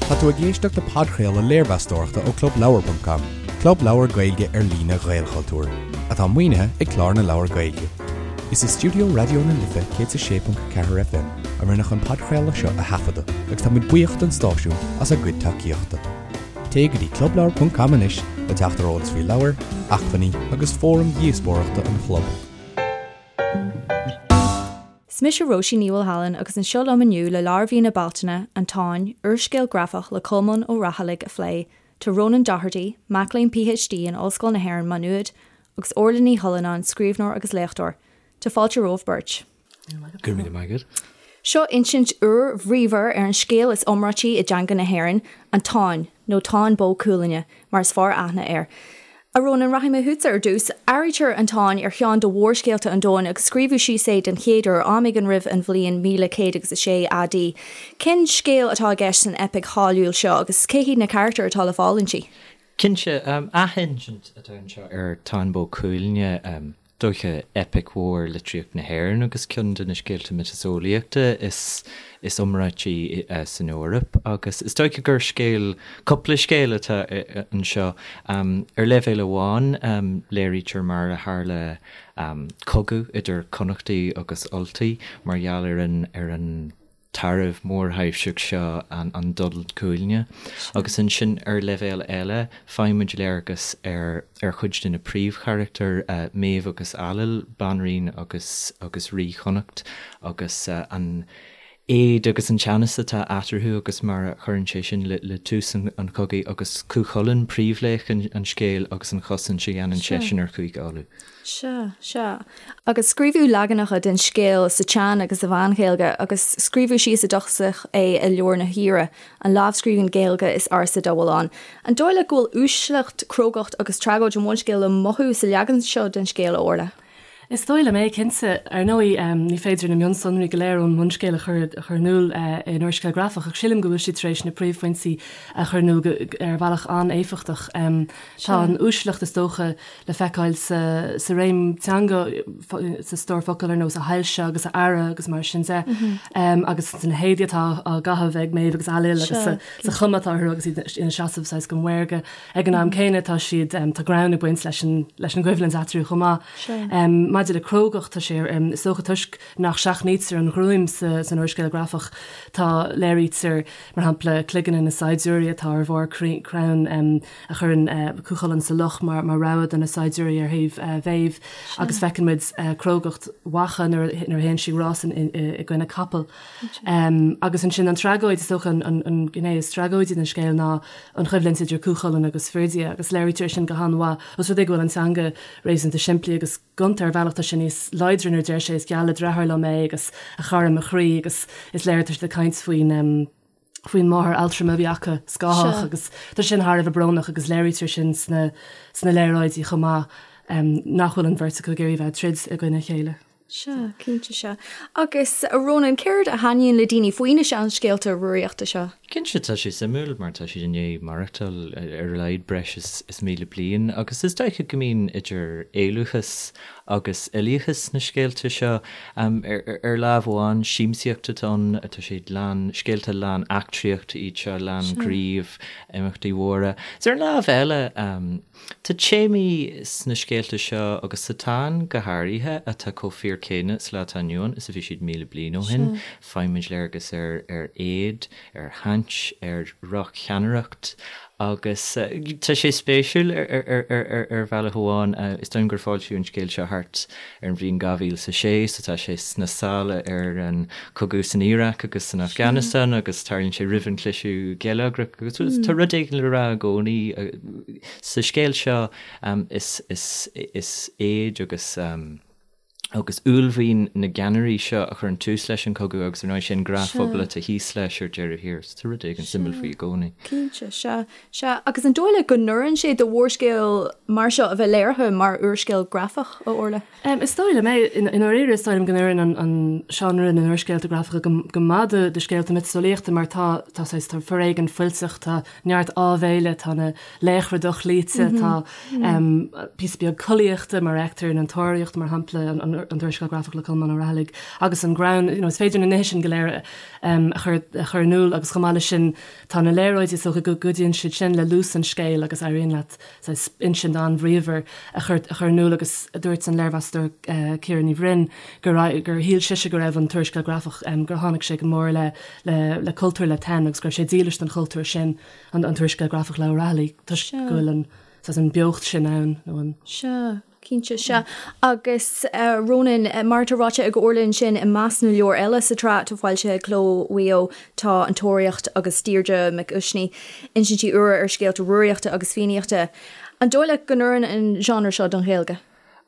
Tá tú ag éisteacht le podchraoladh léirmheastóireachta ó ClubLeabhar.com, club leabhar Gaeilge ar líne Ghaelchultúir, atá maoinithe ag Clár na Leabhar Gaeilge. Is i stiúideo Raidió na Life 106.4 FM a rinneadh an podchraoladh seo a thaifeadadh agus tá muid buíoch don stáisiún as a gcuid tacaíochta. Téigh go dtí clubleabhar.com anois le teacht ar eolas faoi leabhair, acmhainní agus fóraim dhíospóireachta an chlub. Is mise Róisín Ní Mhaolshealain agus anseo liom inniu le leabhar mhí na Bealtaine, An Táin, úrscéal grafach le Colmán Ó Raghallaigh a phlé, tá Rónán Doherty, mac léinn PhD in Ollscoil na hÉireann, Maigh Nuad, agus Orla Ní Chuilleanáin, scríbhneoir agus léachtóir. Tá fáilte romhaibh beirt. Go raibh míle maith agat. Seo insint úr bhríomhar ar an scéal is iomráití i dteanga na hÉireann, An Táin, nó Táin Bó Cuailgne, mar is fearr aithne air. A Rónáin, rachaidh mé chugatsa ar dtús. Áirítear An Táin ar cheann de mhórscéalta an domhain agus scríobhadh síos é den chéad uair am éigin roimh an bhliain 1106 AD. Cén scéal atá i gceist san eipic cháiliúil seo agus cé hiad na carachtair atá le fáil inti? Cinnte, athinsint atá anseo ar Táin Bó Cuailgne. dóiche, eipic mhór litríocht na hÉireann agus ceann de na scéalta miotaseolaíochta is is iomráití san Eoraip agus is dóiche gur scéal, cúpla scéal atá anseo. Ar leibhéal amháin, léirítear mar a tharla cogadh idir Connachtaigh agus Ultaigh mar gheall ar an ar an tarbh mórthaibhseach seo, an Donn Cuailgne. Agus ansin ar leibhéal eile, faighimid léargas ar ar chuid de na príomhcharachtair, Méabh agus Ailill, banríon agus agus rí Chonnacht, agus an éad agus an teannas atá eatarthu agus mar a chuireann sé sin le le tús an chogaidh, agus Cú Chulainn, príomhlaoch an scéil agus an chosaint a dhéanann seisean ar Chúige Uladh. Sea, sea. Agus scríobhadh leaganacha den scéal sa tSean agus sa Mheán-Ghaeilge, agus scríobhadh síos i dtosach é i Leabhar na hAoire, an lámhscríbhinn Ghaeilge is ársa dá bhfuil ann. An dóigh leat go bhfuil uaisleacht, crógacht agus tragóid an bhunscéil le mothú sa leagan seo den scéal, a Orla? Is dóigh liom é, cinnte. Ar ndóigh, ní féidir na mionsonraí go léir ón mbunscéal a chur a chur in iúl in úrscéal grafach, ach sílim go bhfuil siad tar éis na príomhphointí a chur in iúl ar bhealach an-éifeachtach. Tá an uaisleacht, is dócha, le feiceáil sa réim teanga, sa stór focal ar nós 'a shoilse' agus 'a fheara' agus mar sin de, agus sna héadaí atá á gcaitheamh ag Méabh agus Ailill agus sa chuma atá orthu agus iad ina seasamh saghas go maorga. Ag an am céanna tá siad, tá greann ag baint leis an leis an gcoimhlint eatarthu chomh maith. Maidir le crógacht, tá sé, is dócha toisc nach seachnaítear an ghruaim san úrscéal grafach, tá, léirítear, mar shampla, cloigne na saighdiúirí atá ar bharr crann, a chuireann Cú Chulainn sa loch mar rabhadh do na saighdiúirí ar thaobh Mhéabh agus feiceann muid crógacht Mhacha nuair a théann sí rás i gcoinne capall. Agus ansin an tragóid, is dócha an ghné is tragóidí den scéal ná an choimhlint idir Cú Chulainn agus Ferdia agus léirítear sin go han-mhaith os rud é go bhfuil an teanga réasúnta simplí agus gonta ar bhealach tá sé níos láidre nuair a deir sé is geall le deartháir liom é agus a chara mo chroí agus is léir tá siad ag caint faoin faoin máthair altrama a bhí acu, Scáthach, agus tá sin thar a bheith brónach agus léirítear sin sna sna léaráidí chomh maith nach bhfuil an bheirt acu ag iarraidh bheith ag troid i gcoinne a chéile. Sea, cinnte sea. Agus, a Rónáin, céard a thaitníonn le daoine faoi na seanscéalta Rúraíochta seo? Cinnte, tá sé suimiúil mar tá siad i ndiaidh maireachtáil ar a laghad breis is 1,000 bliain agus is dócha go mbíonn idir éalúchas agus uilíochas sna scéalta seo. Ar lámh amháin, siamsaíocht atá ann, tá siad lán, scéalta lán eachtraíochta iad seo, lán gnímh, imeachtaí mhóra. Is ar an lámh eile, tá téamaí sna scéalta seo, agus sa Táin go háirithe, atá chomh fíor céanna sa lá atá inniu ann is a bhí siad 1,000 bliain ó shin. Faighimid léargas ar ar éad, ar shaint, ar dhroch-cheannaireacht agus tá sé spéisiúil ar bhealach amháin. Is dóigh liom gur foilsíodh an scéal seo thart ar an bhliain 2006 so tá sé sna sála ar an chogadh san Iaráic agus san Afganastáin agus tarlaíonn sé roimh an chliseadh geilleagrach agus tá rud éigin le rá i gcónaí sa scéal seo. Is éad agus. agus uaillmhian na gceannairí seo a chuireann tús leis an chogadh agus ar ndóigh sé an gnáthphobal atá thíos leis ar deireadh thiar. So tá rud éigin suimiúil faoi i gcónaí. Cinnte, sea, sea. Agus an dóigh leat go n-oireann sé do mhórscéal mar seo a bheith léirithe mar úrscéal grafach, a Orla? Is dóigh liom é. I ndáiríre is dóigh liom go n-oireann an seánra na n-úrscéalta grafacha go maith do scéalta miotaseolaíochta mar tá, tá saghas, tá foréigean fuilteach, tá neart áibhéile, tá na laochra dochloíte, tá píosa beag collaíochta mar a fheictear in An Tóraíocht, mar shampla, an. an t-úrscéal grafach le Colmán Ó Raghallaigh agus an greann, you know, is féidir na nithe sin go léir a chur a chur in iúl agus chomh maith leis sin tá na léaráidí is dócha go gcuidíonn siad sin le luas an scéil agus éiríonn leat saghas insint an-bhríomhar a chur a chur in iúl agus dúirt an léirmheastóir Ciara Ní Bhroin gur gur shíl sise go raibh an t-úrscéal grafach gur tháinig sé go mór le le le cultúr La Tène agus go raibh sé dílis don chultúr sin an an t-úrscéal grafach le Ó Raghallaigh toisc go bhfuil an saghas an beocht sin ann nó an. Sea, cinnte, sea. Agus Rónán, mar atá ráite ag Orla ansin, i measc na leabhar eile sa tsraith atá foilsithe ag Cló Mhaigh Eo tá An Tóraíocht agus Deirdre Mhic Uisnigh, insintí úra ar scéalta Rúraíochta agus Fiannaíochta. An dóigh leat go n-oireann an genre seo don Ghaeilge?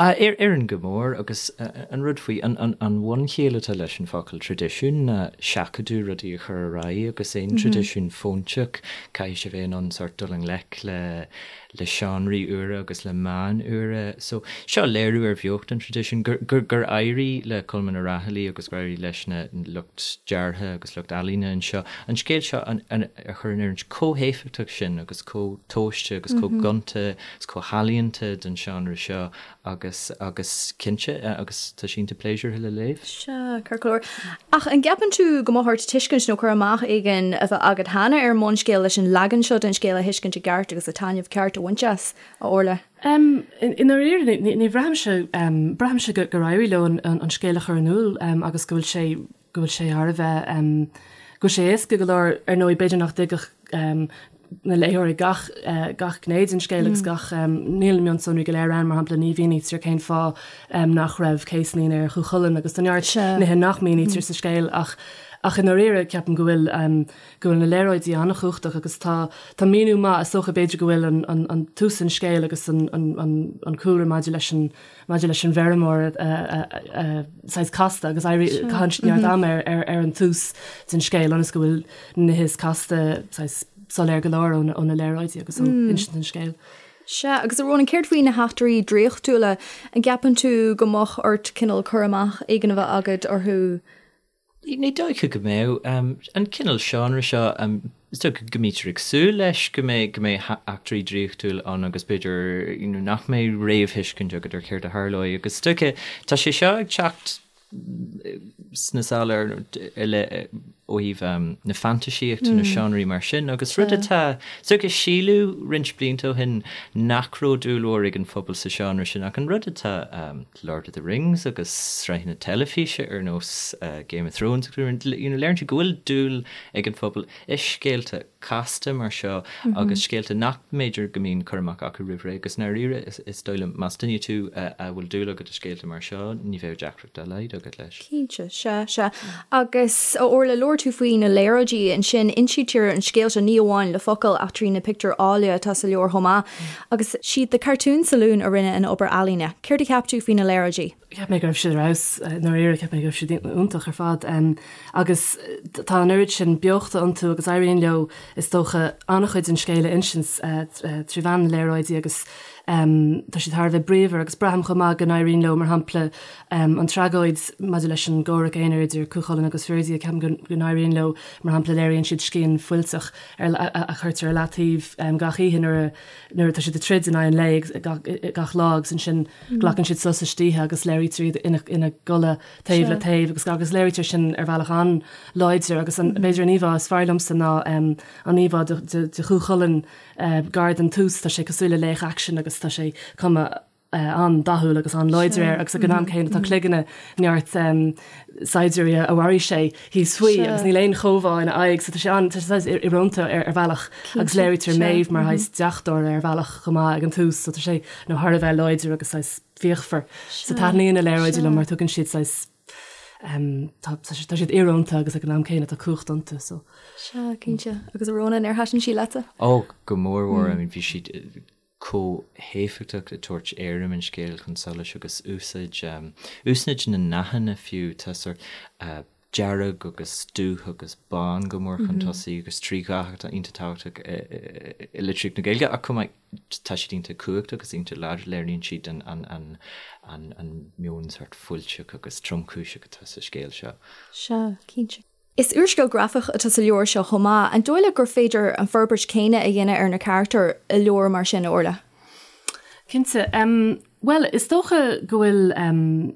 Oireann go mór agus an rud faoi, an bhunchiall atá leis an focal traidisiún ná seachadadh rudaí a chur ar aghaidh agus aon traidisiún fóinteach caithfidh sé bheith in ann sórt dul i ngleic le le seánraí úra agus le meáin úra. So seo léiriú ar bheocht an traidisiúin gur gur gur éirigh le Colmán Ó Raghallaigh agus gur éirigh leis na lucht deartha agus lucht ealaíne anseo an scéal seo a chur in oiriúint chomh héifeachtach sin agus chomh tomhaiste agus chomh gonta is chomh healaíonta don seánra seo agus, agus cinnte, agus tá sé iontach pléisiúrtha le léamh. Sea, ceart go leor. Ach an gceapann tú go mbeadh ort tuiscint nó cur amach éigin a bheith agat cheana ar an mbunscéal leis an leagan seo den scéal a thuiscint i gceart agus an taitneamh ceart a bhaint as, a Orla? I ndáiríre, ní bhraithimse, braithimse gur éirigh leo an scéal a chur in iúl agus go bhfuil sé, go bhfuil sé thar a bheith, go bhfuil sé éasca go leor, ar ndóigh b'fhéidir nach dtuigfeadh na léitheoirí gach, gach gné den scéal agus gach, níl na mionsonraí go léir ann, mar shampla ní mhínítear cén fáth nach raibh céaslaín ar Chú Chulainn agus tá neart nithe nach mínítear sa scéal ach, ach i ndáiríre ceapaim go bhfuil, go bhfuil na léaráidí an-chumhachtach agus tá, tá míniú maith, is dócha b'fhéidir go bhfuil an, an, an tús an scéil agus an, an, an, an cúlra maidir leis an, maidir leis an bhfeirmeoir saghas casta agus caitheann siad neart ama ar an tús den scéal ionas go bhfuil na nithe is casta saghas soiléir go leor ó na léaráidí agus ó insint an scéil. Sea, agus a Rónáin, céard faoi na heachtraí draíochtúla? An gceapann tú go mbeadh ort cineál cur amach éigin a bheith agat orthu? Ní dóiche go mbeadh. An cineál seánra seo, is dócha go mbítear ag súil leis go mbeidh go mbeidh eachtraí draíochtúil ann agus b'fhéidir you know nach mbeidh réamhthuiscint agat ar céard a tharlóidh agus is dócha tá sé seo ag teacht sna sála ar ó thaobh na fantaisíochta nó seánraí mar sin agus rud atá is dócha síleadh roinnt blianta ó shin nach raibh dúil mhór ag an phobal sa seánra sin ach an rud atá Lord of the Rings agus sraitheanna teilifíse ar nós Game of Thrones agus you know léiríonn sé go bhfuil dúil ag an phobal i scéalta casta mar seo agus scéalta nach mb'fhéidir go mbíonn cur amach acu roimh ré agus i ndáiríre is dóigh liom más duine tú a bhfuil dúil agat i scéalta mar seo ní bheadh deacracht dá laghad agat leis. Cinnte, sea, sea. Agus a Orla, labhair tú faoi na léaráidí ansin, insítear an scéal seo ní amháin le focail ach trí na pictiúir áille atá sa leabhar chomh maith. Agus siad The Cartoon Saloon a rinne an obair ealaíne. Céard a cheap tú faoi na léaráidí? Cheap mé go raibh siad ar fheabhas, i ndáiríre, cheap mé go raibh siad iontach ar fad. Agus tá an oiread sin beochta iontu agus éiríonn leo, is dócha, an-chuid den scéal a insint trí mheán na léaráidí agus tá siad thar a bheith bríomhar agus braithim chomh maith go n-éiríonn leo, mar shampla, an tragóid maidir leis an gcomhrac aonair idir Cú Chulainn agus Ferdia, ceapaim go n-éiríonn leo, mar shampla, léiríonn siad scian fuilteach a chuirtear ar leataobh gach oíche nuair a nuair atá siad ag troid in aghaidh an lae gach lá agus ansin glacann siad sos istoíche agus léirítear iad ina gcodladh taobh le taobh agus agus léirítear sin ar bhealach an-láidir agus an b'fhéidir an íomhá is fearr liomsa ná an íomhá de Chú Chulainn gar don tús, tá sé cosúil le laoch aicsin agus tá sé cuma an-dathúil agus an-láidir air agus ag an am céanna tá cloigne neart saighdiúirí a mharaigh sé thíos faoi agus níl aon chomhbhá ina aghaidh so tá sé an, tá sé saghas íorónta ar ar bhealach agus léirítear Méabh mar shaghas deachtóir ar bhealach chomh maith ag an tús so tá sé nó thar a bheith láidir agus saghas fíochmhar. So taitníonn na léaráidí liom mar tugann siad saghas tá tá siad íorónta agus ag an am céanna tá cumhacht iontu so. Sea, cinnte. Agus a Rónáin, ar thaitin sí leatsa? Ó, go mór mhór. I mean bhí siad chomh héifeachtach ag tabhairt éirim an scéil chun solais agus úsáid, úsáid na ndathanna fiú, tá sórt dearg agus dubh agus bán go mór chun tosaigh agus trí dhath atá iontach tábhachtach i litríocht na Gaeilge ach chomh maith tá siad iontach cumhachtach agus iontach láidir, léiríonn siad an, an, an, an meon sórt fuilteach agus tromchúiseach atá sa scéal seo. Sea, cinnte. Is úrscéal grafach atá sa leabhar seo chomh maith. An dóigh leat gur féidir an forbairt chéanna a dhéanamh ar na carachtair i leabhar mar sin, a Orla? Cinnte. Bhuel, is dócha go bhfuil.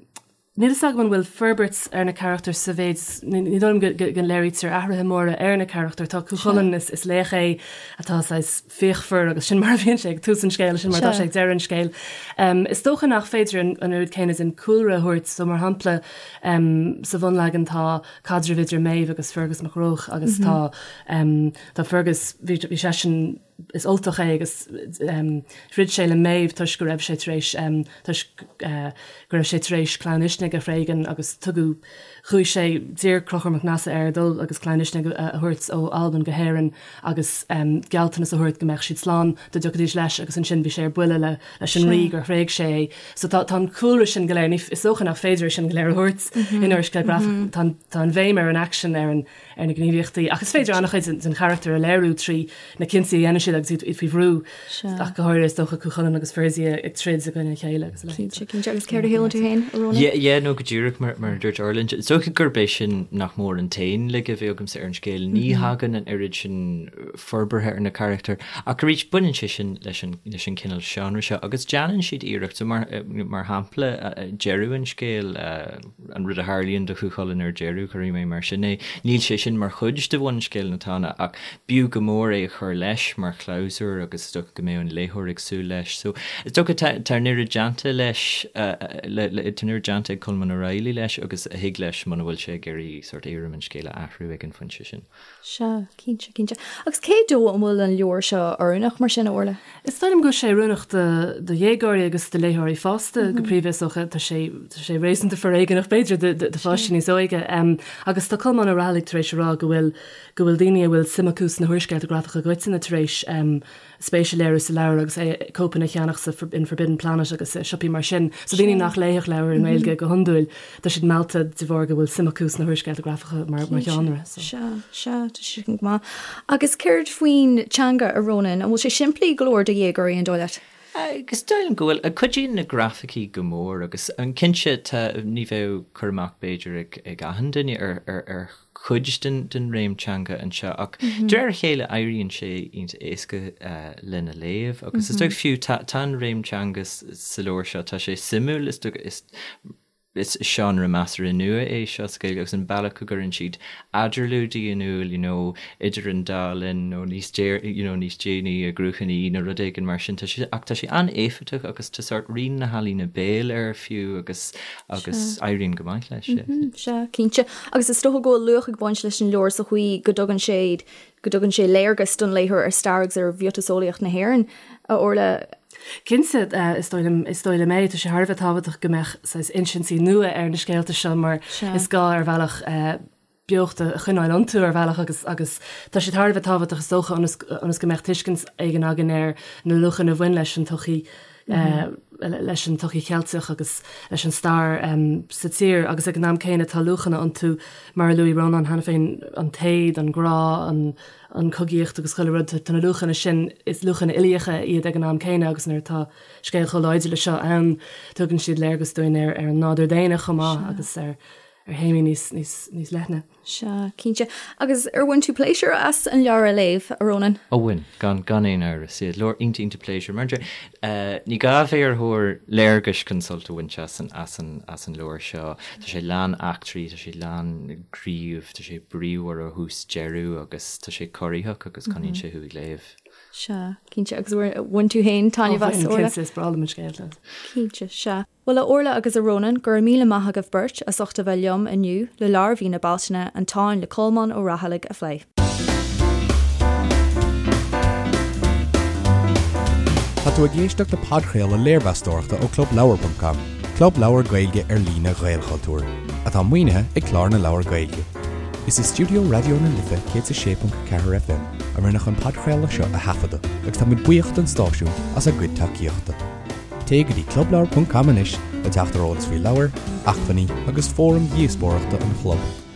Níl fhios agam an bhfuil forbairt ar na carachtair sa mhéid, ní dóigh liom go léirítear athruithe móra ar na carachtair. Tá Cú Chulainn, is laoch é atá saghas fíochmhar agus sin mar a bhíonn sé ag tús an scéil, sin mar atá sé ag deireadh an scéil. Is dócha nach féidir an oiread céanna den cúlra a thabhairt, so mar shampla sa bhunleagan tá caidreamh idir Méabh agus Fergus Mac Róich agus tá tá Fergus, bhí seisean, is Ultach é agus throid sé le Méabh toisc go raibh sé tar éis toisc go raibh sé tar éis Clann Uisnigh a thréigean agus tugadh chuaigh sé d'iarr Conchúr Mac Nessa air dul agus Clann Uisnigh a thabhairt ó Albain go hÉirinn agus gealltanas a thabhairt go mbeadh siad slán dá dtiocfaidís leis agus ansin bhí sé ar buile le leis an rí gur thréig sé é. So tá tá an cúlra sin go léir ní is dócha nach féidir é sin go léir a thabhairt in úrscéal grafach. Tá tá an bhéim ar an aicsean ar an ar na gníomhaíochtaí ach is féidir an-chuid den charachtar a léiriú trí na cinntí a dhéanann siad agus iad faoi bhrú, ach go háirithe is dócha Cú Chulainn agus Fuirzi ag troid i gcoinne a chéile agus a leithéid. Cinnte, cinnte. Agus céard a shíleann tú féin, a Rónáin? Yeah, yeah, no go díreach mar mar a dúirt Orla. Is dócha gurb é sin nach mór an t-aon laige a bhí agamsa ar an scéal. Ní thagann an oiread sin forbartha ar na carachtair ach arís baineann sé sin leis an leis an cineál seánra seo agus déanann siad iarracht. So mar mar shampla deireadh an scéil, an rud a tharlaíonn do Chú Chulainn ar deireadh, cuirfidh mé mar sin é. Níl sé sin mar chuid de bhunscéal na Tána ach b'fhiú go mór é a chur leis mar chlabhsúr agus is dócha go mbeadh an léitheoir ag súil leis. So is dócha tá tá an oiread déanta leis, le le tá an oiread déanta ag Colmán Ó Raghallaigh leis agus a thig leis muna bhfuil sé ag iarraidh sórt éirim an scéil a athrú ag an phointe sin. Sea, cinnte, cinnte. Agus cé dó an bhfuil an leabhar seo oiriúnach mar sin, a Orla? Is dóigh liom go bhfuil sé oiriúnach do do dhéagóirí agus do léitheoirí fásta go príomha is dócha. Tá sé tá sé réasúnta foréigeanach b'fhéidir do do pháistí níos óige. Agus tá Colmán Ó Raghallaigh tar éis a rá go bhfuil go bhfuil daoine a bhfuil suim acu sna húrscéalta grafacha i gcoitinne tar éis spéis a léiriú sa leabhar agus é cóipeanna a cheannach sa in Forbidden Planet agus i siopaí mar sin. So daoine nach léifeadh leabhair i nGaeilge go hiondúil, tá siad meallta de bharr go bhfuil suim acu sna húrscéalta grafacha mar mar sheánra. So. Sea, sea, tá sé sin go maith. Agus céard faoin teanga, a Rónáin? An bhfuil sé simplí go leor do dhéagóirí, an dóigh leat? Is dóigh liom go bhfuil. Cuidíonn na grafaicí go mór agus cinnte tá, ní bheadh cur amach b'fhéidir ag ag achan duine ar ar ar chuid den réim teanga anseo ach de réir a chéile éiríonn sé iontach éasca lena léamh agus is dóigh fiú tá an réim teanga sa leabhar seo, tá sé suimiúil, is dóigh is is seánra measartha nua é seo sa Ghaeilge agus an bealach go gcuireann siad eadarlúidí in iúl you know idir an dá linn nó níos you know níos déanaí i gCruachan Í nó rud éigin mar sin tá sé ach tá sé an-éifeachtach agus tá sórt rian na healaíne béil air fiú agus agus éiríonn go maith leis. Sea, cinnte. Agus is dócha go bhfuil luach ag baint leis an leabhar sa chaoi go dtugann sé, go dtugann sé léargas don léitheoir ar stair agus ar mhiotaseolaíocht na hÉireann, a Orla. Cinnte, is dóigh liom, is dóigh liom é. Tá sé thar a bheith tábhachtach go mbeadh saghas insintí nua ar na scéalta seo mar is gá ar bhealach beocht a choinneáil iontu ar bhealach agus agus tá siad thar a bheith tábhachtach is dócha ionas ionas go mbeadh tuiscint éigin againn ar na luachanna a bhain leis an tsochaí leis an tsochaí Cheilteach agus leis an stair sa tír agus ag an am céanna tá luachanna iontu mar a luaigh Rónán cheana féin an t-éad, an grá, an an chogaíocht agus chuile rud tá na luachanna sin is luachanna uilíocha iad ag an am céanna agus nuair atá scéal chomh láidir le seo ann tugann siad léargas dúinn ar ar an nádúr daonna chomh maith agus ar ar théamaí níos, níos, níos leithne. Sea, cinnte. Agus ar bhain tú pléisiúr as an leabhar a léamh, a Rónáin? Ó bhain, gan, gan aon amhras. Yeah, leabhar iontach, iontach pléisiúr. Mar eh, ní gá a bheith ar thóir léargais chun sult a bhaint as an, as an, as an leabhar seo. Tá sé lán eachtraí, tá sé lán gnímh, tá sé bríomhar ó thús deireadh agus tá sé corraitheach agus coinníonn sé thú ag léamh. Sea, cinnte. Agus bhain tú féin taitneamh as, Ó bhain, cinnte, is breá liom an scéal. Cinnte, sea. Bhuel, a Orla agus a Rónáin, go raibh míle maith agaibh beirt as ucht a bheith liom inniu le leabhar mhí na Bealtaine, An Táin le Colmán Ó Raghallaigh a phlé. Tá tú ag éisteacht le podchraoladh léirmheastóireachta ó ClubLeabhar.com, club leabhar Gaeilge ar líne Ghaelchultúir, atá maoinithe ag Clár na Leabhar Gaeilge. Is i stiúideo Raidió na Life 106.4 FM a rinneadh an podchraoladh seo a thaifeadadh agus táimid buíoch don stáisiún as a gcuid tacaíochta. Téigh go dtí clubleabhar.com anois le teacht ar eolas faoi leabhair, acmhainní agus fóraim dhíospóireachta an chlub.